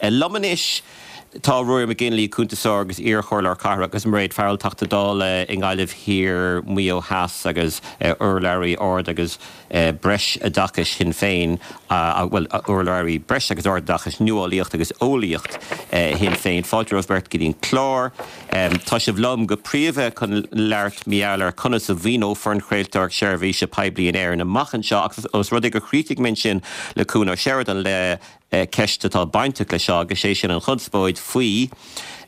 Liom anois tá Ruairí McGinley, cuntasóir agus iar-chomhairleoir cathrach, agus Mairéad Farrell, Teachta Dála i nGaillimh Thiar, Maigh Eo Theas agus urlabhraí ard agus breisoideachais Shinn Féin, bhuel, urlabhraí breis agus ardoideachais, nuálaíocht agus eolaíocht Shinn Féin. Fáilte romhaibh beirt go dtí an clár. Tá sibh liom go príomha chun labhairt mar gheall ar conas a mhaoineofar an chraoltóireacht seirbhíse poiblí in Éirinn amach anseo ach os rud é gur chríochnaigh mé ansin le Cuan Ó Seireadáin le ceist atá bainteach leis seo agus sé sin an chonspóid faoi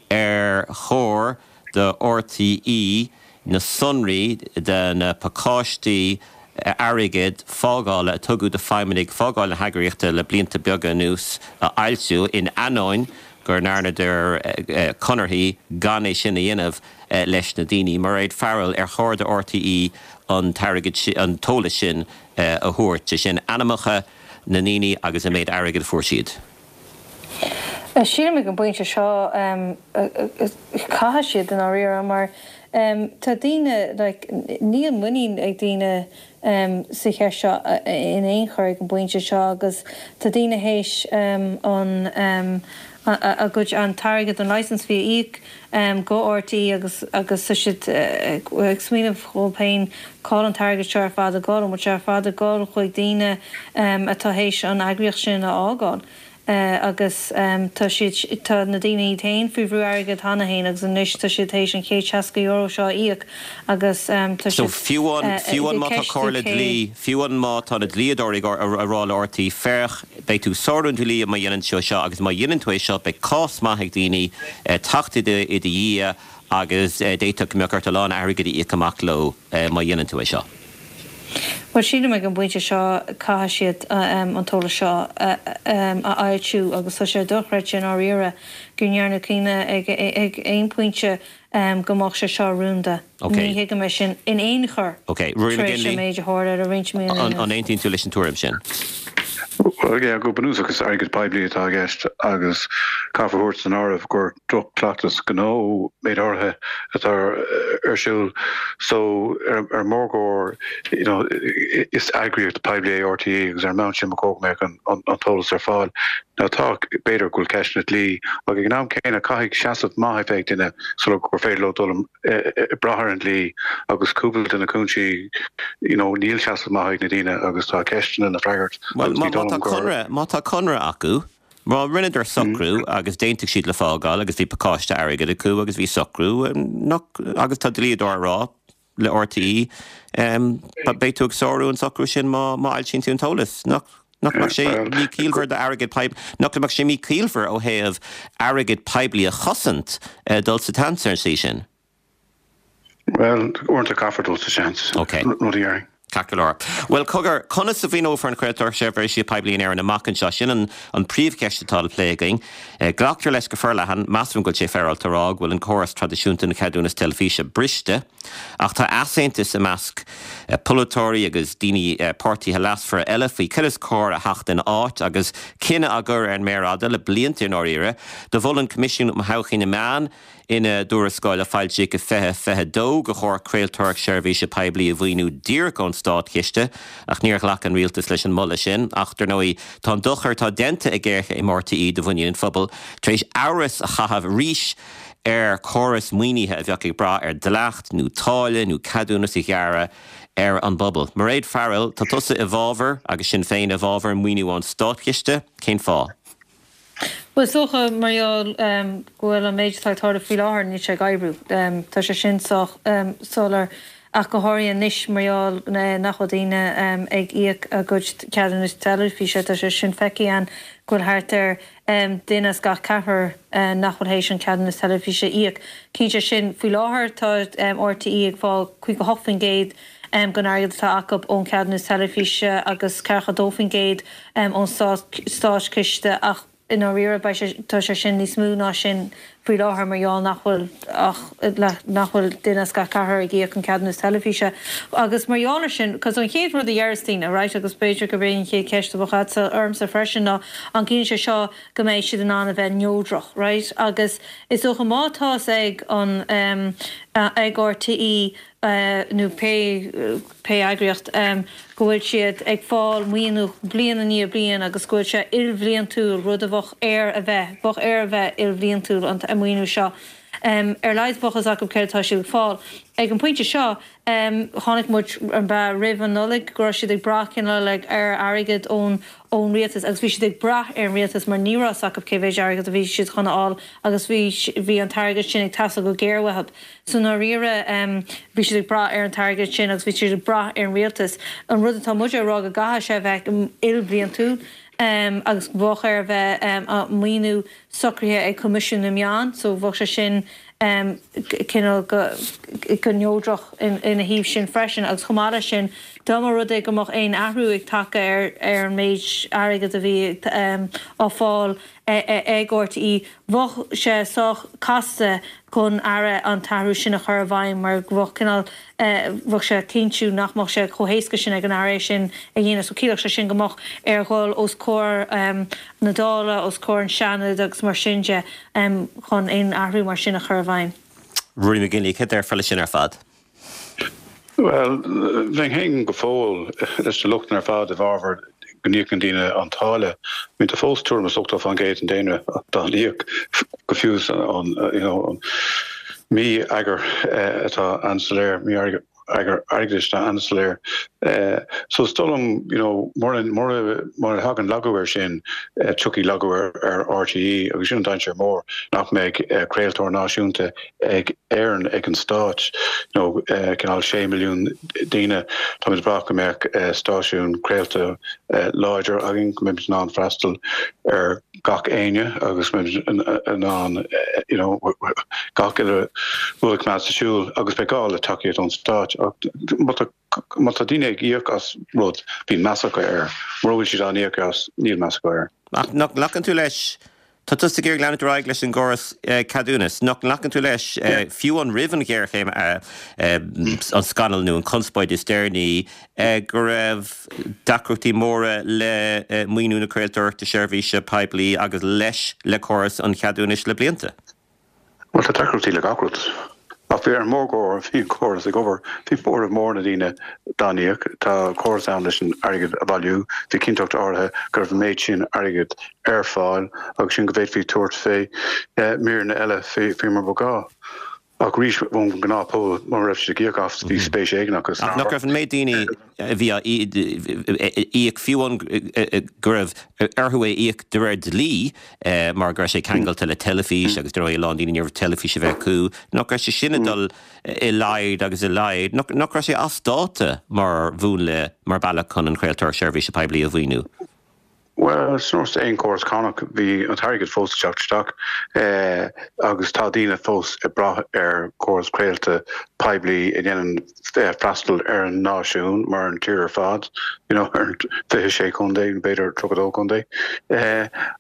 ar chóir do RTÉ na sonraí de na pacáistí airgid fágála a tugadh do feidhmeannaigh fágáil na heagraíochta le blianta beaga anuas a fhoilsiú, in ainneoin go ndearnadar conarthaí gan é sin a dhéanamh leis na daoine. Mairéad Farrell, ar chóir do RTÉ an t-airgead sin, an t-eolas sin a thabhairt, sé sin ainmneacha na ndaoine agus an méid airgid a fuair siad? Sílim ag an bpointe seo caithfidh siad i ndáiríre mar tá daoine like níl muinín ag daoine sa cheist seo in aon chor ag an bpointe seo agus tá daoine théis an a gcuid an t-airgead an licence fee a íoc go RTÉ agus agus tá siad ag smaoineamh dhóibh féin cá bhfuil an t-airgead seo ar fad ag dul, an bhfuil sé ar fad ag dul chuig daoine atá théis an eagraíocht sin a fhágáil. agus tá siad, tá na daoine iad féin faoi bhrú airgid cheana féin agus anois tá siad théis an €160 seo a íoc agus tá So siad fiú amháin, fiú ag amháin má tá ceistiú comhairle cé. dlí, fiú amháin má tá na dlíodóirí ag a rá le RTÉ, féach, beidh tú ag sárú an dlí má dhéanann tú é seo agus má dhéanann tú é seo beidh cás maith ag daoine teacht i do, i do dhiaidh agus d'fhéadfadh go mbeadh ort a lán airgid a íoc amach leo má dhéanann tú é seo. Bhuel, sílim ag an bpointe seo caithfidh siad an t-eolas seo a fhoilsiú agus tá sé dochreidte i ndáiríre go ndearnadh cinneadh ag aon phointe go mbeadh sé seo rúnda. Ní thuigim é sin in aon chor tar éis an méid a tharla le roinnt míonna anuas. An aontaíonn tú leis an tuairim sin? Bhuel, yeah, go bunúsach is airgead poiblí atá i gceist agus caithfear a thabhairt san áireamh gur droch-chleachtas gnó méid áirithe atá ar siúl so ar an mórgóir you know is eagraíocht poiblí é RTÉ agus ar an mbonn sin ba chóir go mbeadh an an t-eolas ar fáil. Now tá, b'fhéidir go bhfuil ceisteanna dlí ach ag an am céanna caithfidh seasamh maith a bheith ag duine sula gur féidir leo dul ag brath ar an dlí agus cúpla de na cúinsí you know níl seasamh maith ag na daoine agus tá ceisteanna le freagairt Bhuel agus má ní dóigh tá liom gur. conradh, má tá conradh acu, má rinneadar socrú agus d'aontaigh siad le fágáil agus bhí pacáiste airgid acu agus bhí socrú nach, agus tá dlíodóir ag rá le RTÉ beidh tú ag sárú an socrú sin má má fhoilsíonn tú an t-eolas. Nach nach mbeadh sé míchiallmhar d'airgead poiblí, nach mbeadh sé míchiallmhar ó thaobh airgead poiblí a chosaint dul sa tseans ar an tslí sin? Bhuel, uaireanta caithfear dul sa seans, Ok. rud a dhéarfainn. Ceart go leor. Bhuel, cogar, conas a mhaoineofar an chraoltóireacht seirbhíse poiblí in Éirinn amach anseo? Sin an an príomhcheist atá le plé againn. Glactar leis go forleathan, measaim go bhfuil sé féaráilte a rá, go bhfuil an córas traidisiúnta den cheadúnas teilifíse briste. Ach tá easaontas i measc polaiteoirí agus daoine, páirtithe leasmhara eile faoi cad is cóir a theacht ina áit agus cinneadh á gcur ar an méar fhada le blianta i ndáiríre. Do mhol an Coimisiún um Thodhchaí na Meán, Ina dtuarascáil a foilsíodh i 2022 gur chóir craoltóireacht seirbhíse poiblí a mhaoiniú díreach ón státchiste, ach níor ghlac an rialtas leis an moladh sin. Ach, dar ndóigh, tá an dochar atá déanta ag géarchéim RTÉ do mhuinín an phobail tar éis amhras a chaitheamh arís ar chóras maoinithe a bheadh ag brath ar dhleacht nó táille nó ceadúnas a ghearradh ar an bpobal. Mairéad Farrell, tá tusa i bhfabhar, agus Sinn Féin i bhfabhar, maoiniú ón státchiste. Cén fáth? Bhuel, is dócha, mar gheall go bhfuil an méid atá ag tarlú faoi láthair, níl sé ag oibriú. Tá sé sin sách soiléir, ach go háirithe anois mar gheall nach bhfuil daoine ag íoc a gcuid ceadúnas teilifíse. Tá sé sin feicthe againn go bhfuil thart ar duine as gach ceathrar nach bhfuil théis an ceadúnas teilifíse a íoc. Cinnte sin, faoi láthair tá RTÉ ag fáil 58% den airgead atá acu ón cheadúnas teilifíse agus 42% ón státchiste ach i ndáiríre beidh sé, tá sé sin níos mó ná sin faoi láthair mar gheall nach bhfuil ach, nach bhfuil duine as gach ceathrar ag íoc an ceadúnas teilifíse. Agus mar gheall ar sin, cos an chéad rud a dheireas daoine, right, agus b'fhéidir gurb é an chéad cheist a bheadh agatsa ormsa freisin ná an gciallaíonn sé seo go mbeidh siad in ann a bheith neodrach, right? Agus is dócha má tá's ag an, ag RTÉ. nó pé pé eagraíocht, go bhfuil siad ag fáil maoiniú bliain i ndiaidh bliain agus go bhfuil sé ilbhliantúil, rud a bheadh air a bheith, bheadh air a bheith ilbhliantúil an maoiniú seo. Ar a laghad bheadh fhios acu céard atá siad ag fáil. Ag an bpointe seo, chonaic muid, an b'ea, roimh an Nollaig go raibh siad ag brath cineál ar airgead ón ón rialtas agus bhí siad ag brath ar an rialtas mar ní raibh fhios acu cé mhéid airgead a bhí siad chun a fháil agus bhí bhí an t-airgead sin ag teastáil go géar uathu. So i ndáiríre bhí siad ag brath ar an t-airgead sin agus bhí siad ag brath ar an rialtas. An rud atá muid ag rá go gcaithfidh sé a bheith ilbhliantúil agus bheadh air a bheith maoiniú socraithe ag Coimisiún na Meán so bheadh sé sin cineál go neodrach ina thaobh sin freisin agus chomh maith leis sin dá mba rud é go mbeadh aon athrú ag teacht ar ar an méid airgid a bhí á fáil ag RTÉ bheadh sé sách casta don Aire an t-athrú sin a chur i bhfeidhm mar go bheadh cineál bheadh sé cinntiú nach mbeadh sé chomh héasca sin ag an Aire é sin a dhéanamh. So chiallódh sé sin go mbeadh air dhul os comhair na Dála, os comhair an Seanad agus mar sin de chun aon athrú mar sin a chur i bhfeidhm. Ruairí McGinley, céard a déarfá leis sin ar fad? Bhuel, bheinn féin go fóill leis na lochtanna ar fad i bhfabhar go n-íocann daoine an táille. I mean, tá fós tuairim is 80% den daonra dá n-íoc, go fiú is an, you know, an mí-eagar atá an-soiléir, mí-eagar airgeadais atá an-soiléir. So is dóigh liom, you know, mura, mura, mura thagann lagú air sin, tiocfaidh lagú ar, ar RTÉ agus sin an dainséar mór, nach mbeidh craoltóir náisiúnta ag Éirinn, ag an stát, you know, cineál 6 milliún daoine, táimid ag brath go mbeadh stáisiún craolta láidir againn, go mbeimid in ann freastal ar gach éinne agus go mbeimid in ann, you know, gach uile rud a choimeád sa siúl agus beidh gá le tacaíocht ón stát. Ach má tá, má tá daoine ag íoc as rud, bíonn meas acu air. Mura bhfuil siad á n-íoc as, níl meas acu air. Ach nach nglacann tú leis Tá tusa ag iarraidh leanúint ar aghaidh leis an gcóras ceadúnas. Nach nglacann tú leis, fiú amháin roimh an ghéarchéim, an scannal nó an chonspóid is deireanaí, go raibh deacrachtaí móra le maoiniú na craoltóireachta seirbhíse poiblí agus leis le córas an cheadúnais le blianta? Bhuel, tá deacrachtaí le gach rud. Ach bhí ar an mórgóir, bhí an córas ag obair. Bhí móramh mór na ndaoine dá n-íoc. Tá córas ann leis an airgead a bhailiú. Bhí cinnteacht áirithe go raibh an méid sin airgid ar fáil agus sin go bhféadfaí tabhairt fé míreanna eile fé mar ba ghá. Ach arís, ón ngnáthphobal, mura raibh siad ag íoc as, bhí spéis éigin acu san ábhar. Ach nach raibh an méid daoine a bhí á íoc, fiú amháin go raibh orthu é a íoc de réir dlí mar go raibh sé ceangailte le teilifís agus dar ndóigh a lán daoine ní raibh teilifís a bheith acu, nach raibh sé sin ag dul i laghad agus i laghad, nach raibh sé as dáta mar mhúnla, mar bhealach chun an chraoltóireacht seirbhíse poiblí a mhaoiniú? Bhuel, is nós aon chóras cánach, bhí an t-airgead fós ag teacht isteach agus tá daoine fós ag brath ar chóras craolta poiblí a dhéanann freastal ar an náisiún mar an tír ar fad, you know, ar an 26 contae, nó b'fhéidir 32 contae,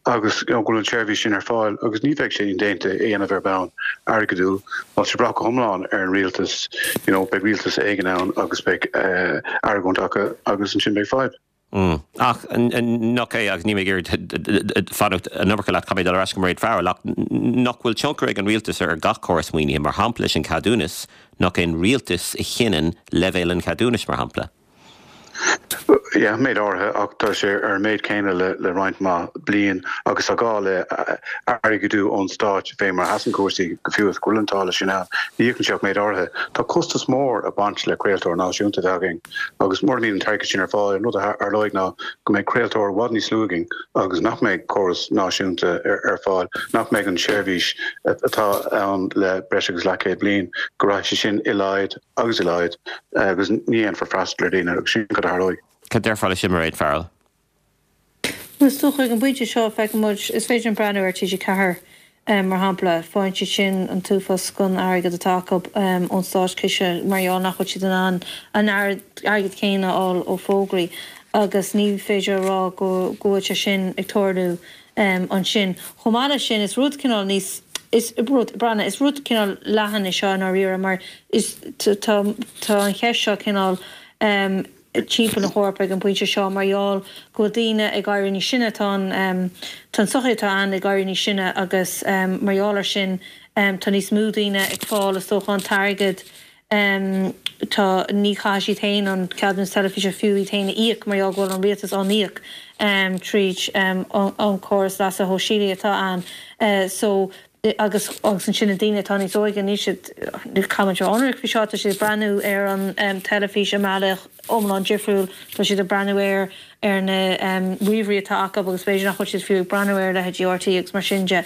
agus you know, go bhfuil an tseirbhís sin ar fáil agus ní bheidh sé indéanta é a dhéanamh ar bhonn airgeadúil. Má tá sé ag brath go hiomlán ar an rialtas, you know, beidh rialtas éigin ann agus beidh argóint acu agus ansin beidh fadhb. Ach nach é, agus níl mé ag iarraidh fanacht an iomarca leat, caithfidh mé dul ar ais go Mairéad Farrell, ach nach bhfuil tionchar ag an rialtas ar gach córas maoinithe, mar shampla leis an cheadúnas, nach é an rialtas a chinneann leibhéal an cheadúnais, mar shampla? Yeah, méid áirithe, ach tá sé ar an méid céanna le roinnt mhaith bliain agus tá gá le airgeadú ón stát fé mar a sheasann cúrsaí, go fiú is go bhfuil an táille sin ann, ní íocann sé ach méid áirithe. Tá costas mór ag baint le craoltóir náisiúnta a bheith againn. Agus mura mbíonn an t-airgead sin ar fáil, an rud a tharlóidh ná go mbeidh craoltóir i bhfad níos lú againn agus nach mbeidh córas náisiúnta ar fáil, nach mbeidh an tseirbhís atá ann le breis agus leathchéad bliain, go rachaidh sé sin i laghad agus i laghad agus ní dhéanfar freastal ar dhaoine agus sin cad a tharlóidh. Cad déarfá leis sin, Mairéad Farrell? Bhuel, is dócha ag an bpointe seo, feiceann muid, is féidir linn breathnú ar TG4 mar shampla, faigheann siad sin an t-uafás den airgead atá acu ón státchiste mar gheall nach bhfuil siad in ann an airgead céanna a fháil ó fógraí agus ní féidir a rá go bhfuil sé sin ag tarlú ansin. Chomh maith leis sin, is rud cineál níos, is rud, breathnaigh, is rud cineál leathan é seo i ndáiríre mar is, tá, tá an cheist seo cineál, timpeall na hEorpa ag an bpointe seo mar gheall go bhfuil daoine ag éirí níos sine, tá an tá an tsochaí atá ann ag éirí níos sine agus mar gheall ar sin tá níos mó daoine ag fáil is dócha an t-airgead. Tá, ní chaithfidh siad féin an ceadúnas teilifíse fiú iad féin a íoc mar gheall go bhfuil an rialtas á n-íoc tríd an córas leasa shóisialaigh atá ann. So, agus agus ansin na daoine atá níos óige, níl siad, caithfidh muid a bheith ionraic faoi seo, tá siad ag breathnú ar an teilifís i mbealach iomlán difriúil, tá siad ag breathnú air ar na ríomhairí atá acu agus b'fhéidir nach bhfuil siad fiú ag breathnú ar leithéidí RTÉ agus mar sin de.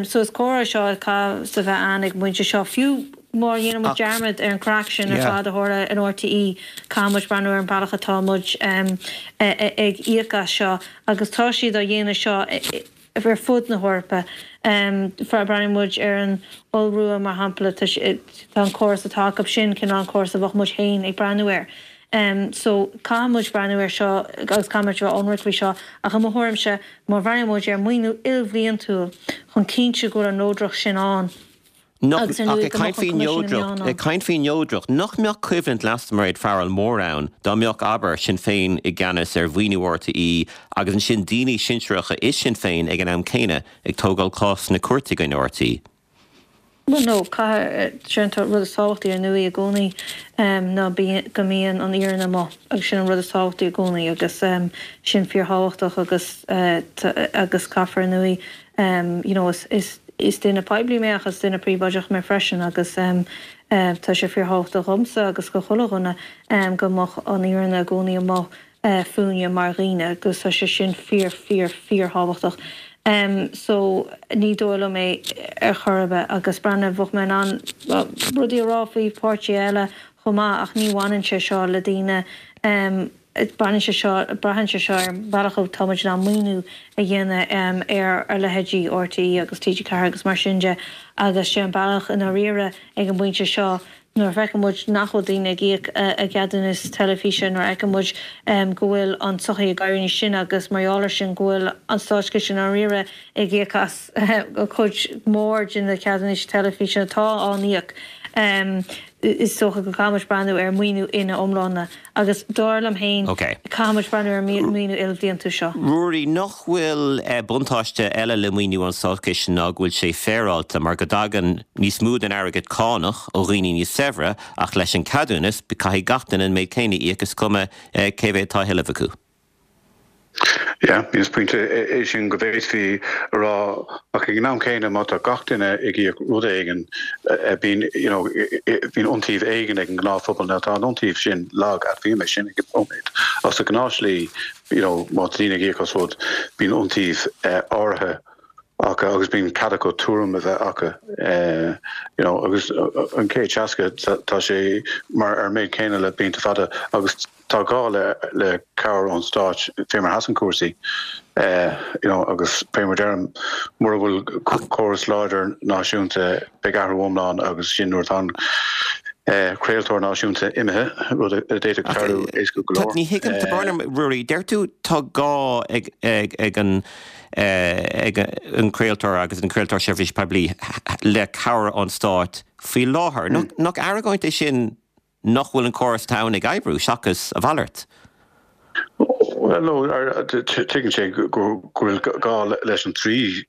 So is comhrá seo a chaithfeas a bheith ann ag an bpointe seo, fiú má dhéanann muid dearmad ar an chraic sin ar fad a tharla in RTÉ, caithfidh muid breathnú ar an bealach atá muid ag íoc as seo agus tá siad á dhéanamh seo ar fud na hEorpa. Breathnaíonn muid ar an Iorua, mar shampla, tá an córas atá acu sin cineál an córas a bheadh muid féin ag breathnú air. So, caithfidh muid breathnú air seo agus caithfidh muid a bheith ionraic faoi seo. Ach i mo thuairimse, má bhreathnaíonn muid ar mhaoiniú ilbhliantúil chun cinntiú go bhfuil an neodracht sin ann, Nach, ach ag caint faoi neodracht, ag caint faoi neodracht, nach mbeadh coimhlint leasa Mairéad Farrell mór ann dá mbeadh, abair, Sinn Féin i gceannas ar mhaoiniú RTÉ agus ansin daoine sinsearacha i Sinn Féin ag an am céanna ag tógáil cás sna cúirteanna i gcoinne RTÉ? Bhuel, no, caithfidh, sin an rud is tábhachtaí ar ndóigh i gcónaí ná go mbíonn an fhírinne amuigh agus sin an rud is tábhachtaí i gcónaí agus sin fíorthábhachtach agus agus caithfear ar ndóigh you know is is Is duine poiblí mé ach is duine príobháideach mé freisin agus tá sé fíorthábhachtach dhomsa agus do chuile dhuine go mbeadh an fhírinne i gcónaí amuigh fúinne mar dhaoine agus tá sé sin fíor fíor fíorthábhachtach. So ní dóigh liom é ar chor ar bith agus breathnaigh, bheadh mé in ann rudaí a rá faoi pháirtithe eile chomh maith ach ní bhaineann sé seo le daoine Baineann sé seo, braitheann sé seo ar an bhealach atá muid in ann maoiniú a dhéanamh ar ar leithéidí RTÉ agus TG4 agus mar sin de agus sé an bealach i ndáiríre ag an bpointe seo nuair a fheiceann muid nach bhfuil daoine ag íoc a gceadúnas teilifíse, nuair a fheiceann muid go bhfuil an tsochaí ag éirí níos sine agus mar gheall air sin go bhfuil an státchiste i ndáiríre ag íoc as cuid mhór de na ceadúnais teilifíse atá á n-íoc. Is dócha go gcaithfidh muid breathnú ar mhaoiniú ina iomláine agus dar liom féin, caithfidh muid breathnú ar an maoiniú ilbhliantúil seo. Ruairí, nach bhfuil buntáiste eile le maoiniú ón Státchiste ná go bhfuil sé féaráilte mar go dtagann níos mó den airgead cánach ó dhaoine níos saibhre ach leis an ceadúnas caithfidh gach duine an méid céanna a íoc is cuma cé mhéad atá á thuilleamh acu. Yeah, is pointe é sin go bhféadfaí a rá ach ag an am céanna má tá gach duine ag íoc rud éigin bíonn you know bíonn iontaoibh éigin ag an ngnáthphobal. Now tá an iontaoibh sin lag, admhaím é sin ag an nóiméad ach sa ghnáthshlí you know má tá daoine ag íoc as rud bíonn iontaoibh áirithe acu agus bíonn cead acu tuairim a bheith acu you know agus an 160 tá sé mar ar an méid céanna le blianta fada agus Tá gá le cabhair ón stáit fé mar a sheasann cúrsaí you know agus fé mar deirim mura bhfuil córas láidir náisiúnta beidh athrú iomlán agus sin nuair atá an craoltóir náisiúnta imithe, rud a d'fhéadfadh tarlú éasca go leor. Ní thuigim, tá brón orm, Ruairí, deir tú tá gá ag ag an ag an craoltóir agus an craoltóir seirbhíse poiblí le cabhair ón stáit faoi láthair. Nach argóint é sin nach bhfuil an córas atá ann ag oibriú, seachas a mhalairt. Bhuel, no, tuigeann sé go bhfuil gá leis an trí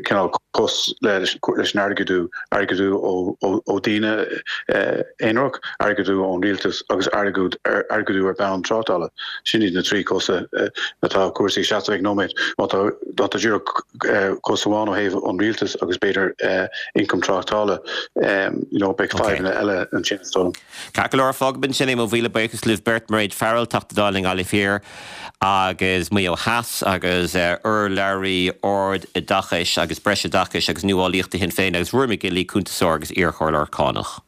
cineál cos leis an airgeadú, airgeadú ó daoine aonarach, airgeadú ón rialtas agus airgeadú ar bhonn tráchtála. Sin iad na trí cosa atá cúrsaí ag seasamh ag nóiméad. Má tá má tá díreach cos amháin ó thaobh an rialtais agus b'fhéidir ioncam tráchtála, you know, beidh fadhbanna eile ansin is dóigh liom. Ceart go leor, fágfaidh ansin é, mo mhíle buíochas libh beirt, Mairéad Farrell, Teachta Dála i nGaillimh Thiar agus Maigh Eo Theas agus urlabhraí Ard-Oideachais agus Breisoideachais agus Nuálaíochta Shinn Féin agus Ruairí McGinley, cuntasóir agus iarchomhairleoir cánach.